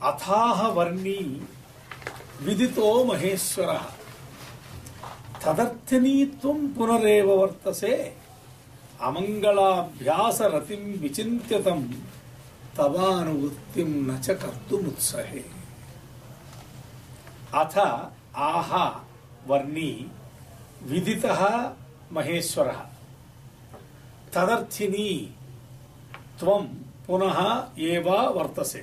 अथाह वर्णी विदितो महेश्वरः तदर्थनी त्वं पुनरेव वर्तसे अमंगलाभ्यास रतिं विचिन्त्यतं तवानुवृत्तिं न च कर्तुमुत्सहे। अथ आह वर्णी विदितः महेश्वरः तदर्थिनी त्वं पुनः एव वर्तसे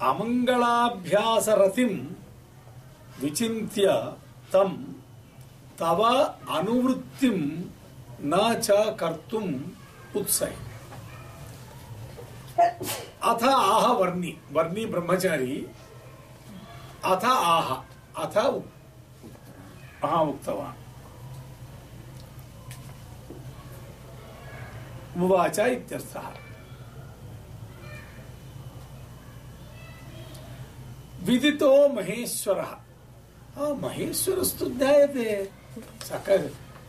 अमंगलाभ्यास रतिं विचिन्त्य तं तव अनुवृत्तिं न च कर्तुम् उत्सहे। अथ आह वर्णी वर्णी ब्रह्मचारी अथ आह अथ उक्तवान् उवाच इत्यर्थः। विदितो महेश्वरः महेश्वरस्तु ज्ञायते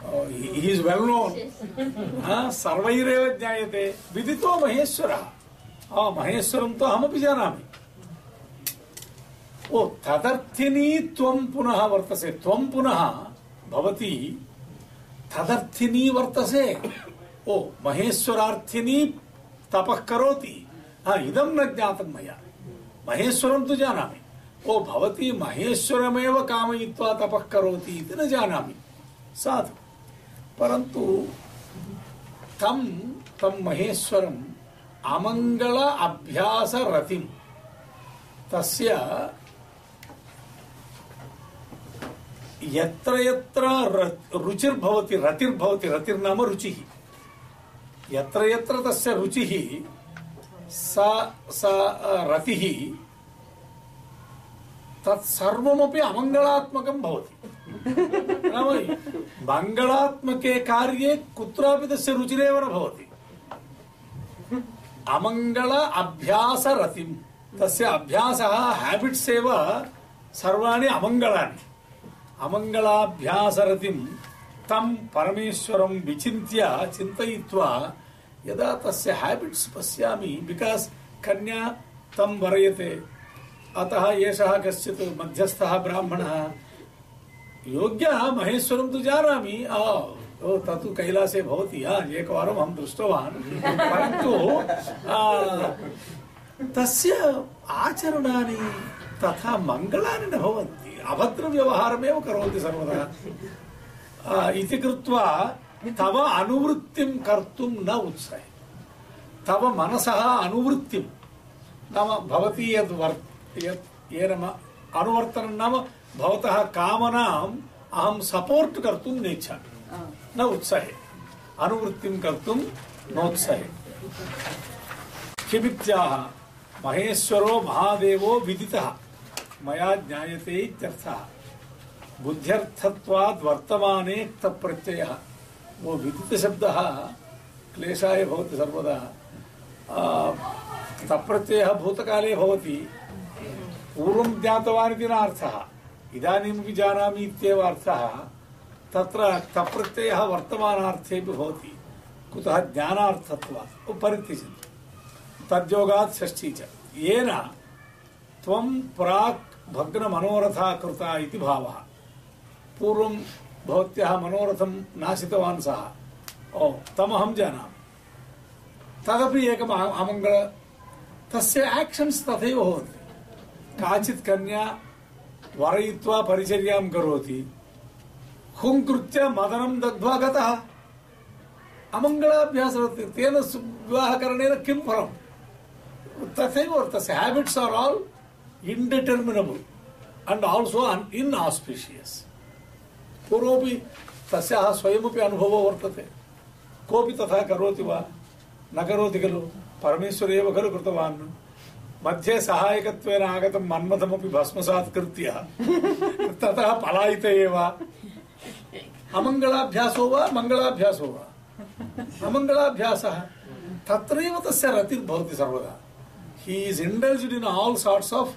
he is well known सर्वैरेव ज्ञायते। विदितो महेश्वरः महेश्वरं तो अहमपि जानामि। ओ तदर्थिनी त्वं पुनः वर्तसे त्वं पुनः भवती तदर्थिनी वर्तसे। ओ महेश्वरार्थिनी तपः करोति इदं न ज्ञातं मया। महेश्वरं तु जानामि। ओ भवती महेश्वरमेव कामयित्वा तपः करोति इति न जानामि। साधु परन्तु तं महेश्वरम् अमंगल अभ्यास रतिं तस्य यत्र यत्र रुचिर्भवति रतिर्भवति रतिर्नाम रुचिः यत्र यत्र तस्य रुचिः सा रतिः तत्सर्वमपि अमंगलात्मकं भवति। मंगलात्मके कार्ये कुत्रापि तस्य रुचिरेव न भवति। अमंगल अभ्यास रतिं तस्य अभ्यासः हैबिट्स् एव सर्वाणि अमंगलानि। अमंगलाभ्यास रतिं तं परमेश्वरं विचिन्त्य चिन्तयित्वा यदा तस्य हैबिट्स् पश्यामि बिकास् कन्या तं वरयते अतः एषः कश्चित् मध्यस्थः ब्राह्मणः योग्यः महेश्वरं तु जानामि तत्तु कैलासे भवति एकवारम् अहं दृष्टवान् परन्तु तस्य आचरणानि तथा मङ्गलानि न भवन्ति अभद्रव्यवहारमेव करोति सर्वदा इति कृत्वा तव अनुवृत्तिं कर्तुं न उत्सहे। तव मनसः अनुवृत्तिं नाम भवती येन अनुवर्तनं नाम भवतः कामनाम् अहं सपोर्ट कर्तुं नेच्छामि न उत्सहे अनुवृत्तिं कर्तुं नोत्सहे। किमित्याह महेश्वरो महादेवो विदितः मया ज्ञायते इत्यर्थः। बुद्ध्यर्थत्वाद् वर्तमाने क्तप्रत्ययः वो विदित शब्दः क्लेशाय भवति सर्वदा। क्तप्रत्ययः भूतकाले भवति पूर्वं ज्ञातवान् इति न अर्थः इदानीमपि जानामि इत्येव अर्थः। तत्र क्तप्रत्ययः वर्तमानार्थेपि भवति कुतः ज्ञानार्थत्वात् परित्यजति तद्योगात् षष्ठी च येन त्वं प्राक् भग्नमनोरथा कृता इति भावः। पूर्वं भवत्याः मनोरथं नाशितवान् सः तमहं जानामि तदपि एकम् अमङ्गल तस्य आक्षन्स् तथैव भवन्ति। काचित् कन्या वरयित्वा परिचर्यां करोति हुङ्कृत्य मदनं दग्ध्वा गतः अमङ्गलाभ्यासः तेन विवाहकरणेन किं फलम् तथैव तस्य habits are all indeterminable and also inauspicious. पूर्वमपि तस्याः स्वयमपि अनुभवो वर्तते कोऽपि तथा करोति वा न करोति खलु परमेश्वर एव खलु कृतवान्। मध्ये सहायकत्वेन आगतं मन्मथमपि भस्मसात् कृत्य ततः पलायित एव। अमङ्गलाभ्यासो वा मङ्गलाभ्यासो वा अमङ्गलाभ्यासः तत्रैव तस्य रतिर्भवति सर्वदा। He is indulged in all sorts of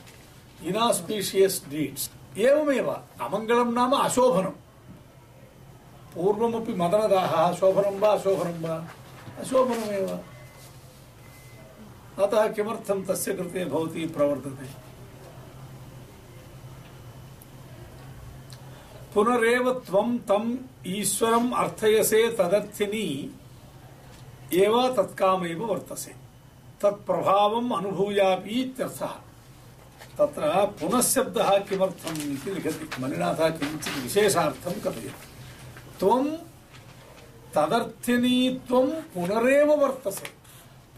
inauspicious deeds. एवमेव अमङ्गलं नाम अशोभनं। पूर्वमपि मदनदाहः शोभनं वा अशोभनं वा अशोभनमेव। अतः किमर्थं तस्य कृते भवती प्रवर्तते? पुनरेव त्वं तम् ईश्वरम् अर्थयसे तदर्थिनी एव तत्कामेव वर्तसे तत्प्रभावम् अनुभूयापि इत्यर्थः। तत्र पुनः शब्दः किमर्थम् इति लिखति मणिनाथः किञ्चित् विशेषार्थं कथयति। त्वं तदर्थिनी त्वं पुनरेव वर्तसे,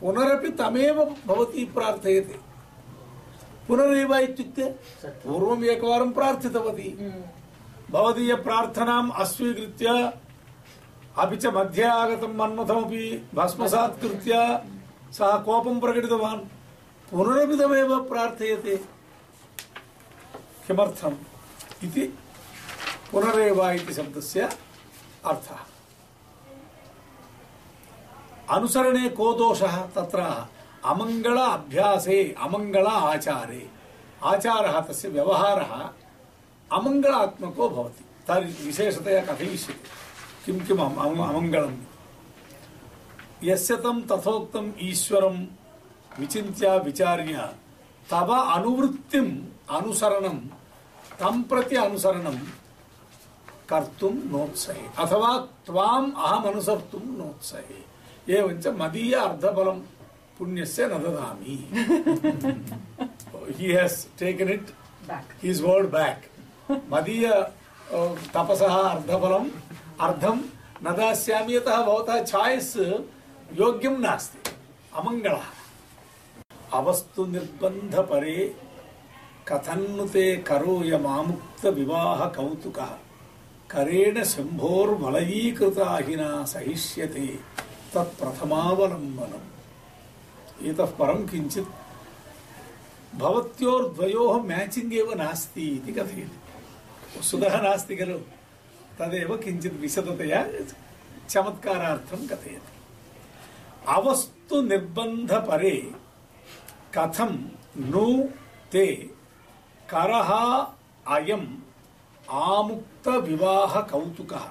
पुनरपि तमेव भवती प्रार्थयते। पुनरेव इत्युक्ते पूर्वम् एकवारं प्रार्थितवती, भवदीय प्रार्थनाम् अस्वीकृत्य अपि च मध्ये आगतं मन्मथमपि भस्मसात् कृत्य सः कोपं प्रकटितवान्, पुनरपि तमेव प्रार्थयते। किमर्थम् इति पुनरेव इति शब्दस्य अर्थः। अनुसरणे को दोषः? तत्र अमङ्गल अभ्यासे अमङ्गल आचारे, आचारः तस्य व्यवहारः अमङ्गलात्मको भवति। तर्हि विशेषतया कथयिष्यते किं किम् अमङ्गलम्। यस्य तं तथोक्तम् ईश्वरं विचिन्त्य विचार्य तव अनुवृत्तिम् अनुसरणं तं प्रति अनुसरणं कर्तुं नोत्सहे अथवा त्वाम् अहम् अनुसर्तुं नोत्सहे। एवञ्च मदीय अर्धफलं पुण्यस्य न ददामि। He has taken it back, his word back. मदीय तपसः अर्धफलम् अर्धं न दास्यामि, यतः भवतः छायस् योग्यं नास्ति, अमङ्गलः। अवस्तु निर्बन्ध परे कथन्नुते करोयमामुक्त विवाह कौतुकः करेण शम्भोर्वलयीकृताहिना सहिष्यते तत्प्रथमावलम्बनम्। इतः परं किञ्चित् भवत्योर्द्वयोः मैचिंग एव नास्ति इति कथयति। वस्तुतः नास्ति खलु, तदेव किञ्चित् विशदतया चमत्कारार्थं कथयति। अवस्तु निर्बन्ध परे कथं नु ते करः अयम् आमुक्त विवाह कौतुकः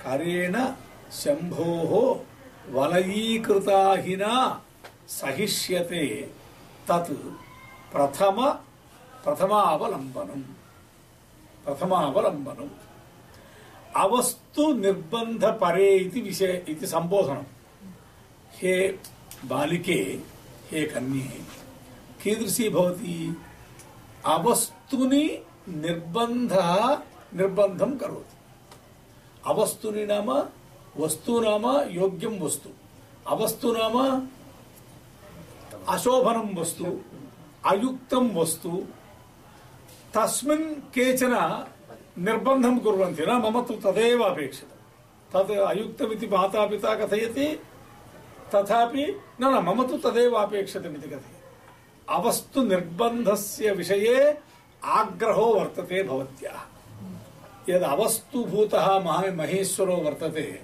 करेण शम्भोः वलयीकृताहिना सहिष्यते तत् प्रथमावलम्बनम्। अवस्तु निर्बन्ध परे इति विषय इति संबोधनम्। हे बालिके, हे कन्ये, कीदृशी भवति? अवस्तुनि निर्बन्धं करोति। अवस्तुनि नाम वस्तु नाम योग्यं वस्तु, अवस्तु नाम अशोभनं वस्तु, अयुक्तं वस्तु। तस्मिन् केचन निर्बन्धं कुर्वन्ति, न मम तु तदेव अपेक्षितं, तद् अयुक्तमिति माता पिता कथयति, तथापि न मम तु तदेव अपेक्षितमिति कथयति। अवस्तु निर्बन्धस्य विषये आग्रहो वर्तते भवत्याः। यद् अवस्तुभूतः महेश्वरो वर्तते,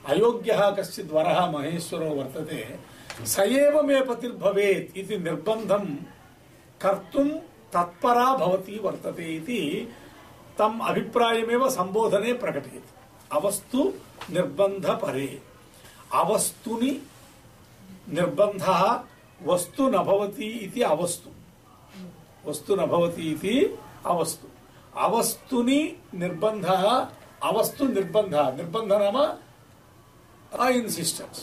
अयोग्यः कश्चित् वरः महेश्वरो वर्तते, स एव मे पतिर्भवेत् इति निर्बन्धं कर्तुं तत्परा भवती वर्तते इति तम् अभिप्रायमेव संबोधने प्रकटयति। अवस्तु निर्बन्ध परे, अवस्तुनि निर्बन्धः वस्तु न भवति इति अवस्तु, वस्तु न भवति इति अवस्तु। अवस्तुनि निर्बन्धः, अवस्तु निर्बन्धः, निर्बन्ध नाम इन्सिस्टेन्स्।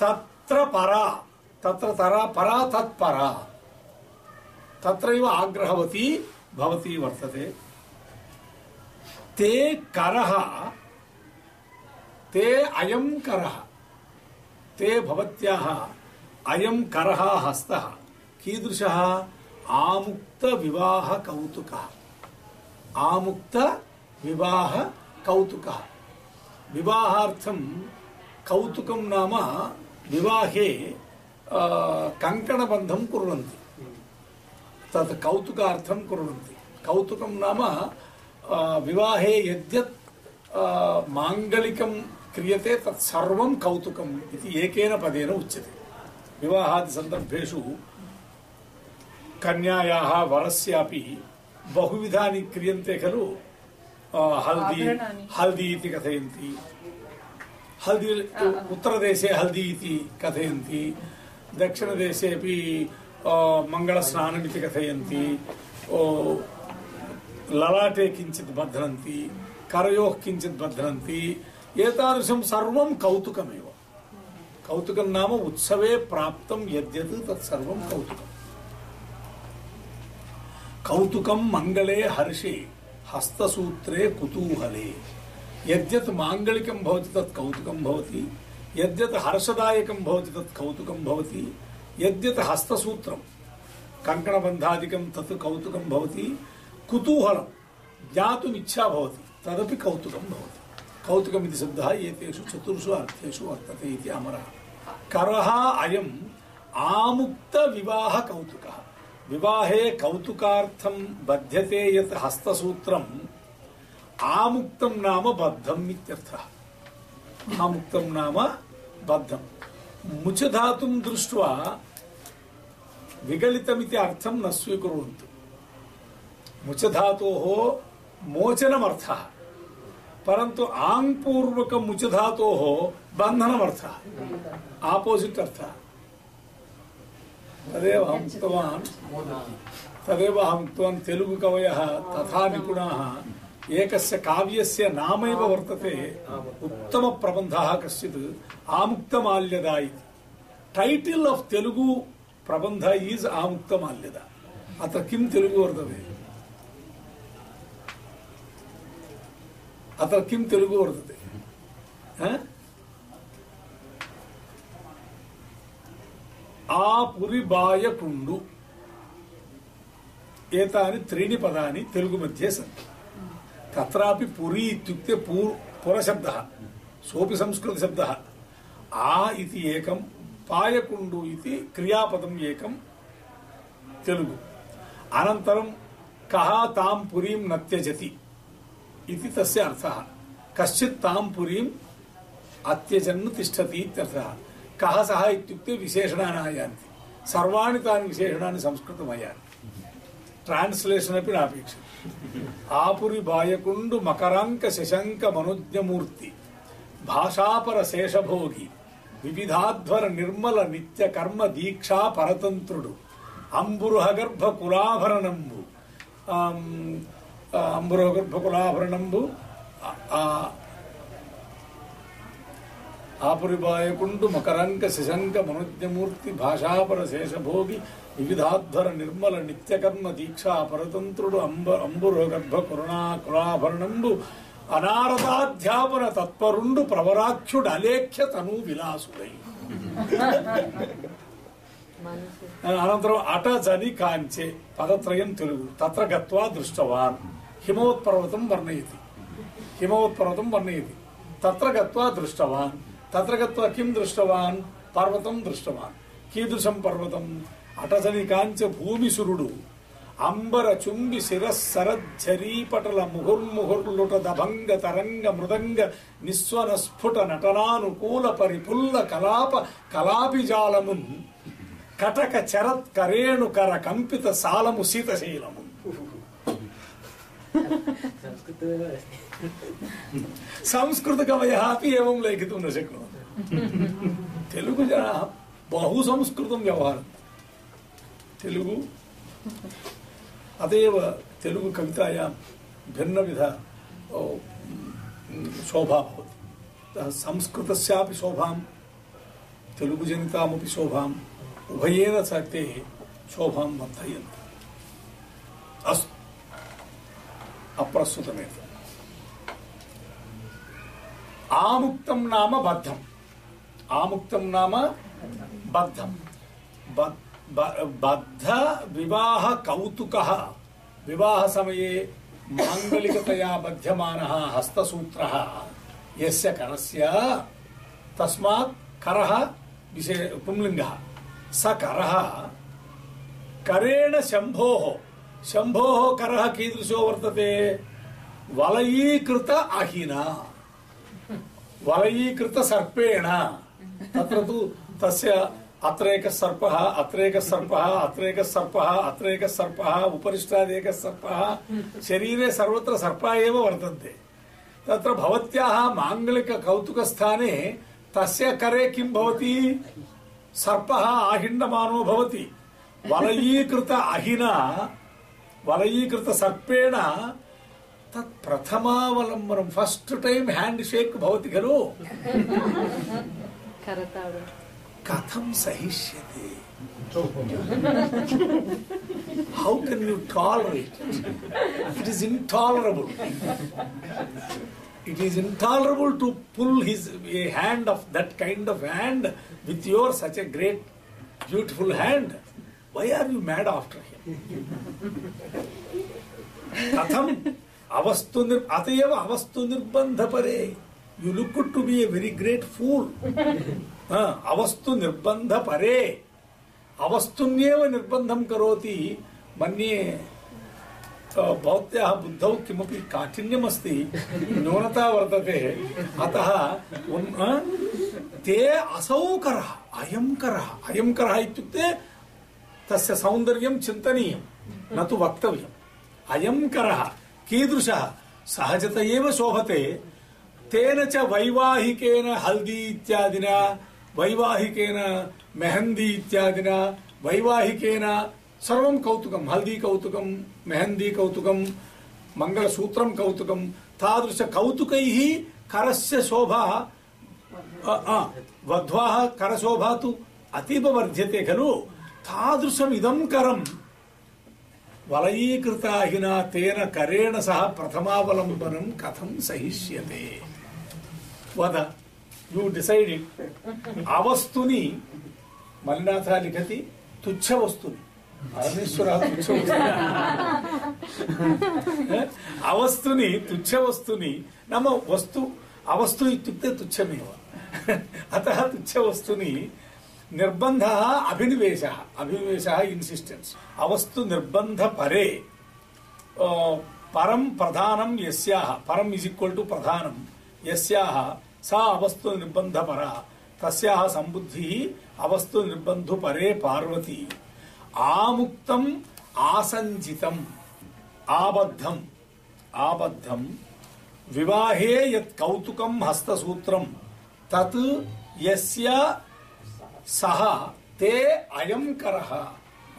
तत्र परा, तत्र तरा परा तत्परा, तत्रैव आग्रहवती भवती वर्तते। ते करः, ते अयं करः, ते भवत्याः अयं करः हस्तः कीदृशः? आमुक्त विवाह कौतुकः, आमुक्त विवाह कौतुकः। विवाहार्थं कौतुकं नाम विवाहे कङ्कणबन्धं कुर्वन्ति, तत् कौतुकार्थं कुर्वन्ति। कौतुकं नाम विवाहे यद्यत् माङ्गलिकं क्रियते तत् सर्वं कौतुकम् इति एकेन पदेन उच्यते। विवाहादि सन्दर्भेषु कन्यायाः वरस्यापि बहुविधानि क्रियन्ते खलु। हल्दी इति कथयन्ति, हल्दी उत्तरदेशे हल्दी इति कथयन्ति, दक्षिणदेशेऽपि मङ्गलस्नानमिति कथयन्ति, ललाटे किञ्चित् बध्नन्ति, करयोः किञ्चित् बध्नन्ति। एतादृशं सर्वं कौतुकमेव। कौतुकं नाम उत्सवे प्राप्तं यद्यत् तत्सर्वं कौतुकम्। कौतुकं मङ्गले हर्षे हस्तसूत्रे कुतूहले। यद्यत् माङ्गलिकं भवति तत् कौतुकं भवति, यद्यत् हर्षदायकं भवति तत् कौतुकं भवति, यद्यत् हस्तसूत्रं कङ्कणबन्धादिकं तत् कौतुकं भवति, कुतूहलं ज्ञातुम् इच्छा भवति तदपि कौतुकं भवति। कौतुकमिति शब्दः एतेषु चतुर्षु अर्थेषु वर्तते इति अमरः। करः अयम् आमुक्तविवाह कौतुकः। विवाहे कौतुकार्थं बध्यते यत् हस्तसूत्रम् आमुक्तं नाम बद्धम् इत्यर्थः। आमुक्तं नाम बद्धम्। मुचधातुं दृष्ट्वा विगलितमिति अर्थं न स्वीकुर्वन्तु। मुचधातोः मोचनमर्थः, परन्तु आङ्पूर्वक मुचधातोः बन्धनमर्थः, आपोजिट् अर्थः। तदेव अहम् उक्तवान् तेलुगु कवयः तथा निपुणाः एकस्य काव्यस्य नामैव वर्तते उत्तमप्रबन्धः कश्चित् आमुक्तमाल्यदा इति। टाइटल ऑफ तेलुगु प्रबन्ध इज आमुक्तमाल्यदा। अत्र किं तेलुगु वर्तते? अत्र किं तेलुगु वर्तते? आपुरिबायकुण्डु एतानि त्रीणि पदानि तेलुगु मध्ये सन्ति। तत्रापि पुरी इत्युक्ते पुरशब्दः, सोऽपि संस्कृतशब्दः। आ इति एकं, पायकुण्डु इति क्रियापदम् एकं तेलुगु। अनन्तरं कः तां पुरीं न त्यजति इति तस्य अर्थः। कश्चित् तां पुरीम् अत्यजन् तिष्ठति इत्यर्थः। कः सः इत्युक्ते विशेषणानि आयान्ति। सर्वाणि तानि विशेषणानि संस्कृतमयानि। ट्रान्स्लेशन् अपि नापेक्षितम्। आपुरी बायकुण्डु मकरांक शशंक मनोज्ञमूर्ति भाषापर शेषभोगी विविधाध्वर निर्मल नित्य कर्म दीक्षा परतंत्रुडु अंबुरुहगर्भ कुलाभरणंबु अंबुरुहगर्भ कुलाभरणंबु आपुरिबायकुण्डु मकरांक शशंक मनोज्ञमूर्ति भाषापर शेषभोगी विविधाध्वर निर्मल नित्यकर्म दीक्षा परतंत्रुडु अंबुरुहगर्भ कुलाभरणंबु अनारदाध्यापन तत्परुंडु प्रवराख्युडु अलेख्य तनु विलासुडै। अनन्तरम् अट जनि काञ्चे पदत्रयं तेलुगु। तत्र गत्वा दृष्टवान् हिमवत्पर्वतं वर्णयति। हिमवत्पर्वतं वर्णयति। तत्र गत्वा दृष्टवान्। तत्र गत्वा किं दृष्टवान्? पर्वतं दृष्टवान्। कीदृशं पर्वतम्? अटजनि काञ्च भूमिसुरुडु अंबर चुंबि शिरस्सरज्झरीपटल मुहुर्मुहुर्लुट दभंग तरंग मृदंग निस्वन स्फुट नटनानुकूल परिपुल्ल कलाप कलापिजालमुन् कटक चरत् करेणुकर कंपित सालमु शीतशीलमु। संस्कृत कवयः अपि एवं लेखितुं न शक्नुवन्ति। तेलुगु जनाः बहु संस्कृतं व्यवहरन्ति। तेलुगु अतएव तेलुगु कवितायां भिन्नविध शोभा भवति। संस्कृतस्यापि शोभां तेलुगुजनितामपि शोभाम् उभयेन ते शोभां वर्धयन्ति। अस्तु, अप्रस्तुतमेव। आमुक्तं नाम बद्धम्। आमुक्तं नाम बद्धम्। बद्ध विवाह कौतुकः। विवाह समये मांगलिकतया बध्यमानः हस्तसूत्रः यस्य करस्य, तस्मात् करः पुंलिङ्गः। स करः करेण शम्भोः। शम्भोः करः कीदृशो वर्तते? वलयीकृत अहिना, वलयीकृत सर्पेण। तत्र तु तस्य अत्रैकः सर्पः, अत्रैकः सर्पः, अत्रैकः सर्पः, अत्रैकः सर्पः, उपरिष्टादेकः सर्पः, शरीरे सर्वत्र सर्पाः एव वर्तन्ते। तत्र भवत्याः माङ्गलिक कौतुकस्थाने तस्य करे किं भवति? सर्पः आहिण्डमानो भवति वलयीकृत अहिना वलयीकृत सर्पेण तत् प्रथमावलम्बनं फर्स्ट टाइम हैंड शेक भवति खलु कथं सहिष्यते how can you tolerate it is intolerable it is intolerable to pull a hand of that kind of hand with your such a great beautiful hand why are you mad after him katham अतएव अवस्तु निर्बंध परे you look to be a very great fool अवस्तु निर्बंध परे अवस्तुन्येव निर्बंधं करोति मन्ये भवत्याः बुद्धौ किमपि काठिन्यमस्ति न्यूनता वर्तते अतः ते असौकरः अयं करः इत्युक्ते तस्य सौन्दर्यं चिन्तनीयं न तु वक्तव्यम् अयं करः कीदृशः सहजत एव शोभते तेन च वैवाहिकेन हल्दी इत्यादिना वैवाहिकेन मेहंदी इत्यादिना वैवाहिकेन सर्वं कौतुकं हल्दी कौतुकं मेहंदी कौतुकं मंगलसूत्रं कौतुकं तादृश कौतुकैः करस्य शोभा वध्वाः करशोभा तु अतीव वर्ध्यते खलु तादृशम् इदं करं वलयीकृताहिना तेन करेण सह प्रथमावलम्बनं कथं सहिष्यते वद यू डिसाइड इट अवस्तुनि मल्लिनाथः लिखति तुच्छ वस्तुनि परमेश्वरः तुच्छ अवस्तुनि तुच्छ वस्तुनि नाम वस्तु अवस्तु इत्युक्ते तुच्छमेव अतः तुच्छ वस्तुनि निर्बन्धः अभिनिवेशः इंसिस्टेंस अवस्तु निर्बन्ध परे परम प्रधानम यस्याः परम इज इक्वल टू प्रधानम यस्याः सा अवस्तु निर्बन्ध परा तस्याः संबुद्धिः अवस्तु निर्बन्धु परे पार्वती आमुक्तम आसंजितम आबद्धम विवाहे यत् कौतुकं हस्तसूत्रं तत् यस्य सह ते अयं करः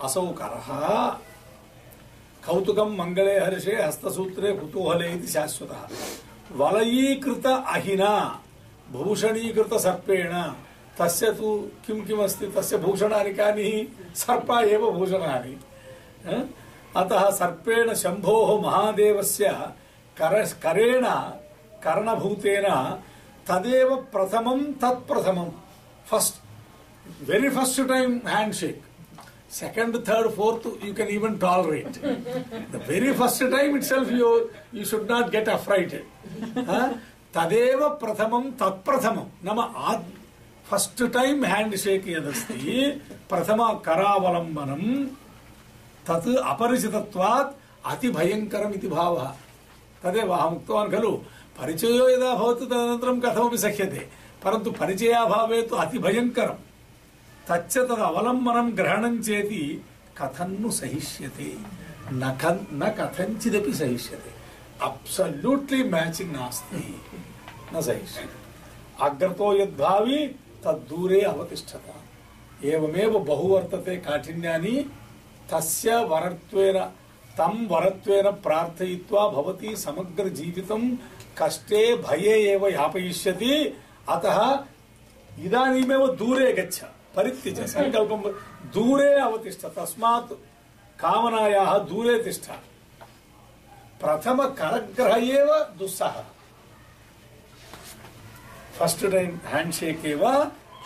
असौ करः कौतुकं मंगले हर्षे हस्तसूत्रे कुतूहले इति शाश्वतः वलयीकृत अहिना भूषणीकृत सर्पेण तस्य तु किं किमस्ति तस्य भूषणानि कानि सर्पा एव भूषणानि अतः सर्पेण शम्भोः महादेवस्य करेण कर्णभूतेन तदेव प्रथमं तत्प्रथमं first very first time handshake second third fourth you can even tolerate the very first time itself you should not get affrighted tadeva prathamam tat prathamam nama first time handshake yadasti prathama karavalambanam tat aparichitatvat ati bhayankaram iti bhavah tadeva aham uktavan khalu परिचयो यदा भवति तदनन्तरं कथमपि सह्यते परन्तु परिचयाभावे तु अति भयंकरं तच्च तद अवलम्बनं ग्रहणं चेति कथन्नु सहिष्यते न कथञ्चिदपि सहिष्यते अब्सल्यूट्ली मैचिंग नास्ति न सहिष्यते अग्रतो यद्भावी तद्दूरे अवतिष्ठत एवमेव बहु वर्तते काठिन्यानि तस्य वरत्वेन तं वरत्वेन प्रार्थयित्वा भवती समग्र जीवितं कष्टे भये एव यापयिष्यति अतः इदानीमेव दूरे गच्छ परित्यज संकल्पं दूरे अवतिष्ठ तस्मात् कामनायाः दूरे तिष्ठ प्रथम करग्रह एव दुस्सह फर्स्ट टाइम हैंडशेक एव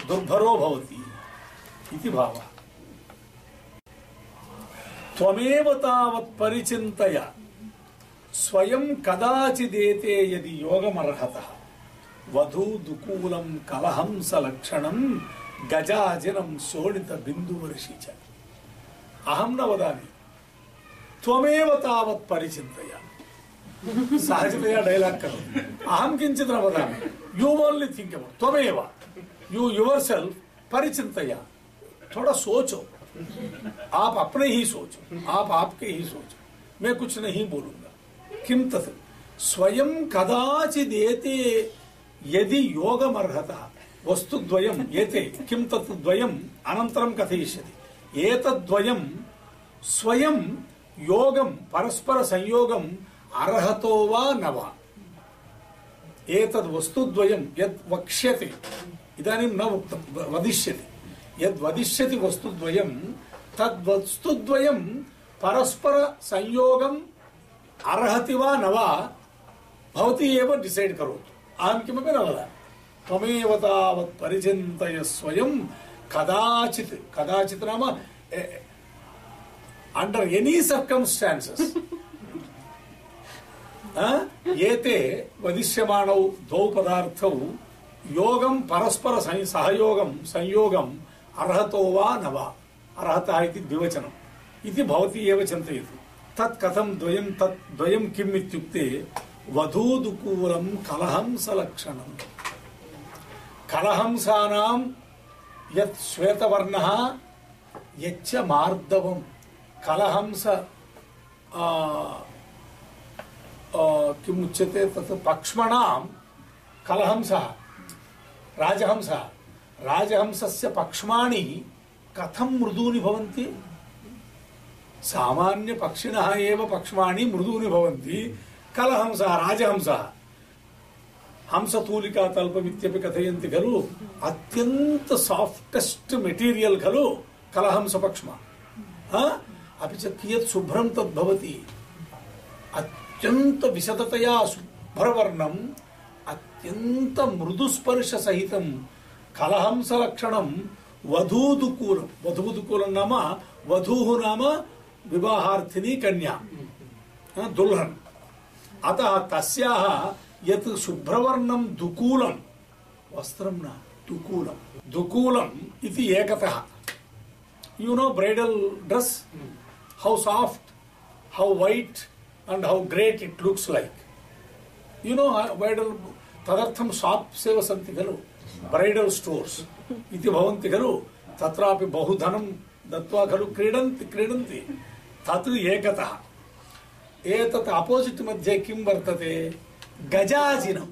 दुर्भरो भवति इति भावः त्वमेव तावत् परिचिन्तय स्वयं कदाचिदेते यदि योगमर्हतः वधू दुकूलं कलहंस लक्षणं गजाजनं शोणित बिंदुवर्षि च अहं न वदामि त्वमेव तावत् परिचिन्तय सहजतया डायलॉग करोतु अहं किंचित न वदामि यू ओनली थिंक अबाउट त्वमेव यू योरसेल्फ परिचिन्तय थोड़ा सोचो आप अपने ही सोचो आप आपके ही सोचो मैं कुछ नहीं बोलूंगा किम तत् स्वयं कदाचिदेते यदि योगमर्हतः वस्तुद्वयम् एते किं तत् द्वयम् अनन्तरं कथयिष्यति एतद्द्वयं स्वयं योगं परस्पर संयोगम् अर्हतो वा न वा एतद् वस्तुद्वयं यद् वक्ष्यते इदानीं न उक्तं वदिष्यति यद् वदिष्यति वस्तुद्वयं तद् वस्तुद्वयं परस्पर संयोगम् अर्हति वा न वा भवती एव डिसैड् करोतु अहं किमपि न वदामि त्वमेव तावत् परिचिन्तय स्वयं कदाचित् कदाचित् नाम अंडर एनी सर्कमस्टान्सेस् एते वदिष्यमाणौ द्वौ पदार्थौ योगं परस्पर सहयोगं संयोगम् अर्हतो वा न वा अर्हतः इति द्विवचनम् इति भवती एव चिन्तयतु तत् कथं द्वयं तत् द्वयं किम् इत्युक्ते वधूदुकूलं कलहंसलक्षणम् कलहंसानां यत् श्वेतवर्णः यच्च मार्दवं कलहंस किमुच्यते तत् पक्ष्मणां कलहंसः राजहंसः राजहंसस्य पक्ष्माणि कथं मृदूनि भवन्ति सामान्य पक्षिणः एव पक्ष्माणि मृदूनि भवन्ति कलहंसः राजहंसः हंसतूलिका तल्पमित्यपि कथयन्ति खलु अत्यंत सॉफ्टेस्ट मेटीरियल खलु कलहंस पक्ष्मा अपि च कियत् शुभ्रं तद् भवति अत्यंत विशदतया शुभ्रवर्णम् अत्यंत मृदुस्पर्श सहितं कलहंस लक्षणं वधूदुकूलं वधूदुकूलं नाम वधूः नाम विवाहार्थिनी कन्या दुल्हन अतः तस्याः यत् शुभ्रवर्णं दुकूलं वस्त्रं न दुकूलं दुकूलम् इति एकतः you know bridal dress how soft how white and how great it looks like you know bridal tadartham shops eva santi khalu bridal stores iti bhavanti khalu tatrapi bahu dhanam dattva khalu kridanti tat ekatah etat opposite madhye kim vartate gajajinam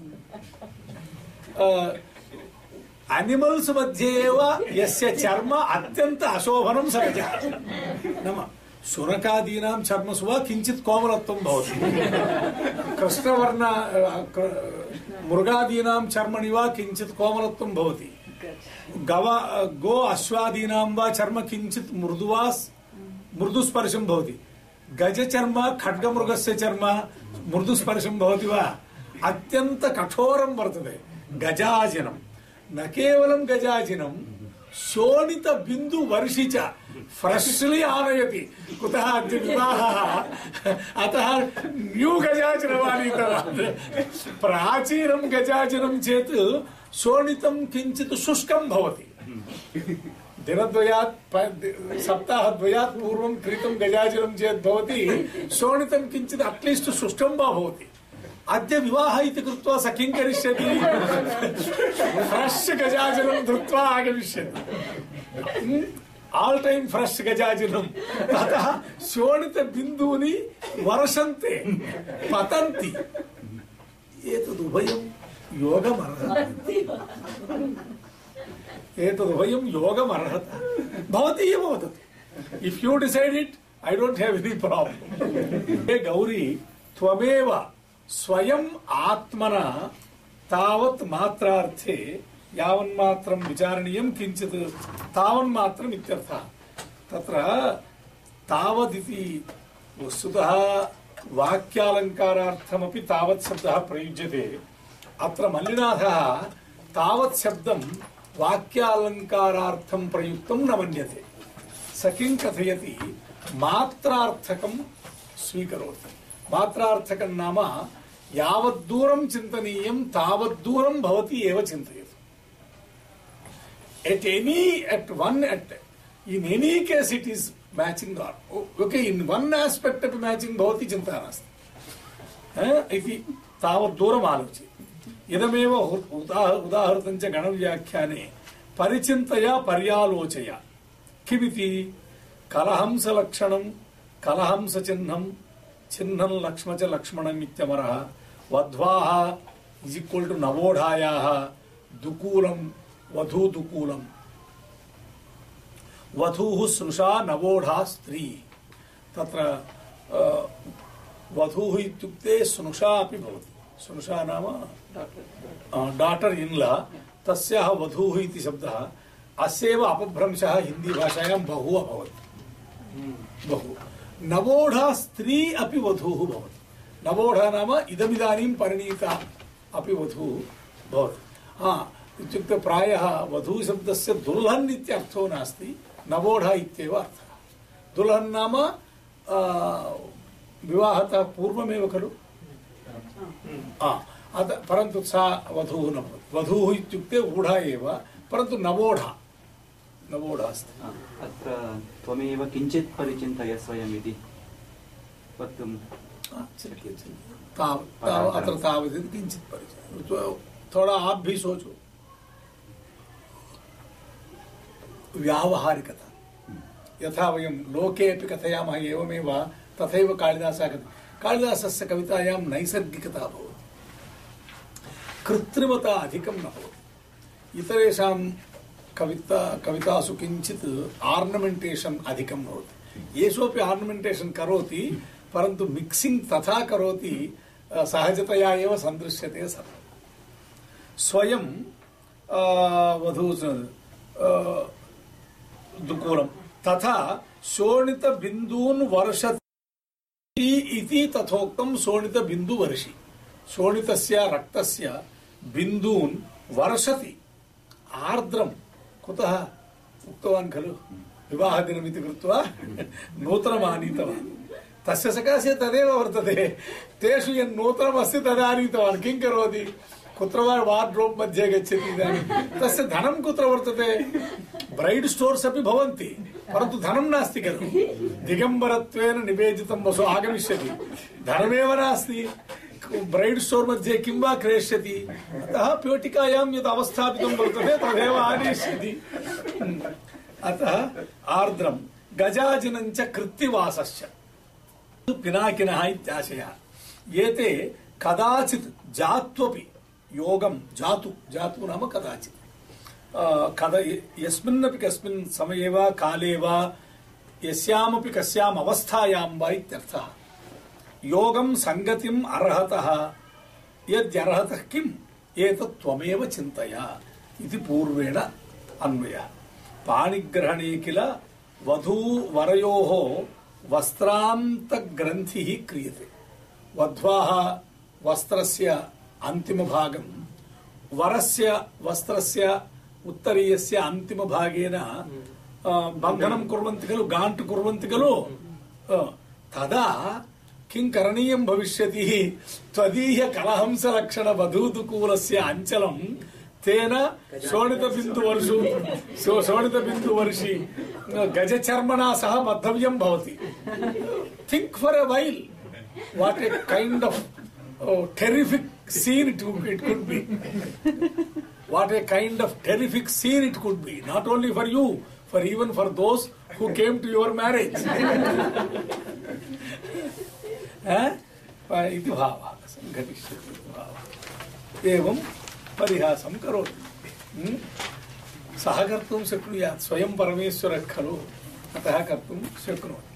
animals madhye eva yasya charma atyanta ashobhanam sagaja nama शुनकादीनां चर्मसु वा किञ्चित् कोमलत्वं भवति कृष्णवर्ण मृगादीनां चर्मणि वा किञ्चित् कोमलत्वं भवति गो अश्वादीनां वा चर्म किञ्चित् मृदुस्पर्शं भवति गजचर्म खड्गमृगस्य चर्म मृदुस्पर्शं भवति वा अत्यन्त कठोरं वर्तते गजाजिनं न केवलं गजाजिनं शोणित बिंदु वर्षि च फ्रेशली आनयति कुतः अद्य विवाहः अतः न्यू गजाचरमानीतवान् प्राचीनं गजाचरं चेत् शोणितं किञ्चित् शुष्कं भवति दिनद्वयात् सप्ताहद्वयात् पूर्वं क्रीतं गजाचरं चेत् भवति शोणितं किञ्चित् अट्लीस्ट् शुष्कं वा भवति अद्य विवाह इति कृत्वा स किं करिष्यति फ्रेश गजाचरं धृत्वा आगमिष्यति ऑल टाइम फ्रेश गजाचरं ततः शोणित बिन्दूनि वर्षन्ते पतन्ति एतदुभयं योगमर्हति एतदुभयं योगमर्हति भवती एव वदतु if you decide it I don't have any problem हे गौरी त्वमेव स्वयं आत्मना तावत् मात्रार्थे यावन्मात्रं विचारणीयं किञ्चित् तावन्मात्रम् इत्यर्थः तत्र तावदिति वस्तुतः वाक्यालङ्कारार्थमपि तावत् शब्दः प्रयुज्यते अत्र मल्लिनाथः तावत् शब्दं वाक्यालङ्कारार्थं प्रयुक्तं न मन्यते स किं कथयति मात्रार्थकं स्वीकरोति मात्रार्थकं नाम यावद्दूरं चिन्तनीयं तावद्दूरं भवति एव चिन्तयतु in any case it is matching or okay in one aspect of matching भवति चिन्ता नास्ति इति तावद्दूरम् आलोच्य इदमेव उदाहृतं च गणव्याख्याने परिचिन्तया पर्यालोचया किमिति कलहंसलक्षणं कलहंसचिह्नं चिह्नं लक्ष्म च लक्ष्मणम् इत्यमरः वध्वाः इज इक्वल टू नवोढायाः दुकूलं वधूदुकूलम् वधूः स्नुषा नवोढा स्त्री तत्र वधूः इत्युक्ते स्नुषा अपि भवति स्नुषा नाम डाटर इन लॉ तस्याः वधूः इति शब्दः अस्यैव अपभ्रंशः हिंदी भाषायां बहु अभवत् बहु नवोढा स्त्री अपि वधूः भवति नवोढा नाम इदमिदानीं परिणीता अपि वधूः भवति इत्युक्ते प्रायः वधू शब्दस्य दुल्हन् इत्यर्थो नास्ति नवोढा इत्येव अर्थः दुल्हन् नाम विवाहतः पूर्वमेव खलु परन्तु सा वधूः न भवति वधूः इत्युक्ते ऊढा एव परन्तु नवोढा अस्ति अत्र त्वमेव किञ्चित् परिचिन्तय स्वयम् इति वक्तुं अत्र तावत् किञ्चित् परिचय थोड़ा आप भी सोचो व्यावहारिकता यथा वयं लोके अपि कथयामः एवमेव तथैव कालिदासस्य कवितायां नैसर्गिकता भवति कृत्रिमता अधिकं न भवति इतरेषां कवितासु किञ्चित् आर्नमेण्टेशन् अधिकं भवति येषु अपि आर्नमेण्टेशन् करोति परन्तु मिक्सिंग तथा करोति सहजतया एव सन्दृश्यते सर्वम् स्वयं दुकूलं तथा शोणित बिंदून् वर्षति इति तथोक्तं शोणित बिंदु वर्षि शोणितस्य रक्तस्य बिंदून् वर्षति आर्द्रं कुतः उक्तवान् खलु विवाहदिनमिति कृत्वा नूतनमानीतवान् तस्य सकाशे तदेव वर्तते तेषु यन् नूतनमस्ति तदानीतवान् किं करोति कुत्र वा वार्ड्रोब् मध्ये गच्छति इदानीं तस्य धनं कुत्र वर्तते ब्रैड् स्टोर्स् अपि भवन्ति परन्तु धनं नास्ति खलु दिगम्बरत्वेन निवेदितं वसु आगमिष्यति धनमेव नास्ति ब्रैड् स्टोर् मध्ये किं वा क्रेष्यति अतः पेटिकायां यद् अवस्थापितं वर्तते तदेव आनयिष्यति अतः आर्द्रं गजाजिनं च कृत्तिवासश्च पिनाकिनः इत्याशयः एते कदाचित् जात्वपि योगं जातु नाम कदाचित् यस्मिन्नपि कस्मिन् समये वा काले वा यस्यामपि कस्याम् अवस्थायां वा इत्यर्थः योगं संगतिम् अर्हतः यद्यर्हतः किम् एतत् त्वमेव चिन्तय इति पूर्वेण अन्वयः पाणिग्रहणे किल वधूवरयोः वस्त्रान्तग्रन्थिः क्रियते वध्वाः वस्त्रस्य अन्तिमभागं वरस्य वस्त्रस्य उत्तरीयस्य अन्तिमभागेन बन्धनं कुर्वन्ति खलु गाण्ट् कुर्वन्ति खलु तदा किं करणीयं भविष्यति त्वदीय कलहंसलक्षण वधूदुकूलस्य अञ्चलं तेन शोणितबिन्दुवर्षि गजचर्मणा सह बद्धव्यं भवति think for a while what a kind of terrific scene it could be what a kind of terrific scene it could be not only for you for even for those who came to your marriage इति भावः संघटिष्यति भावः एवं परिहासं करोति सः कर्तुं शक्नुयात् स्वयं परमेश्वरः खलु अतः कर्तुं शक्नोति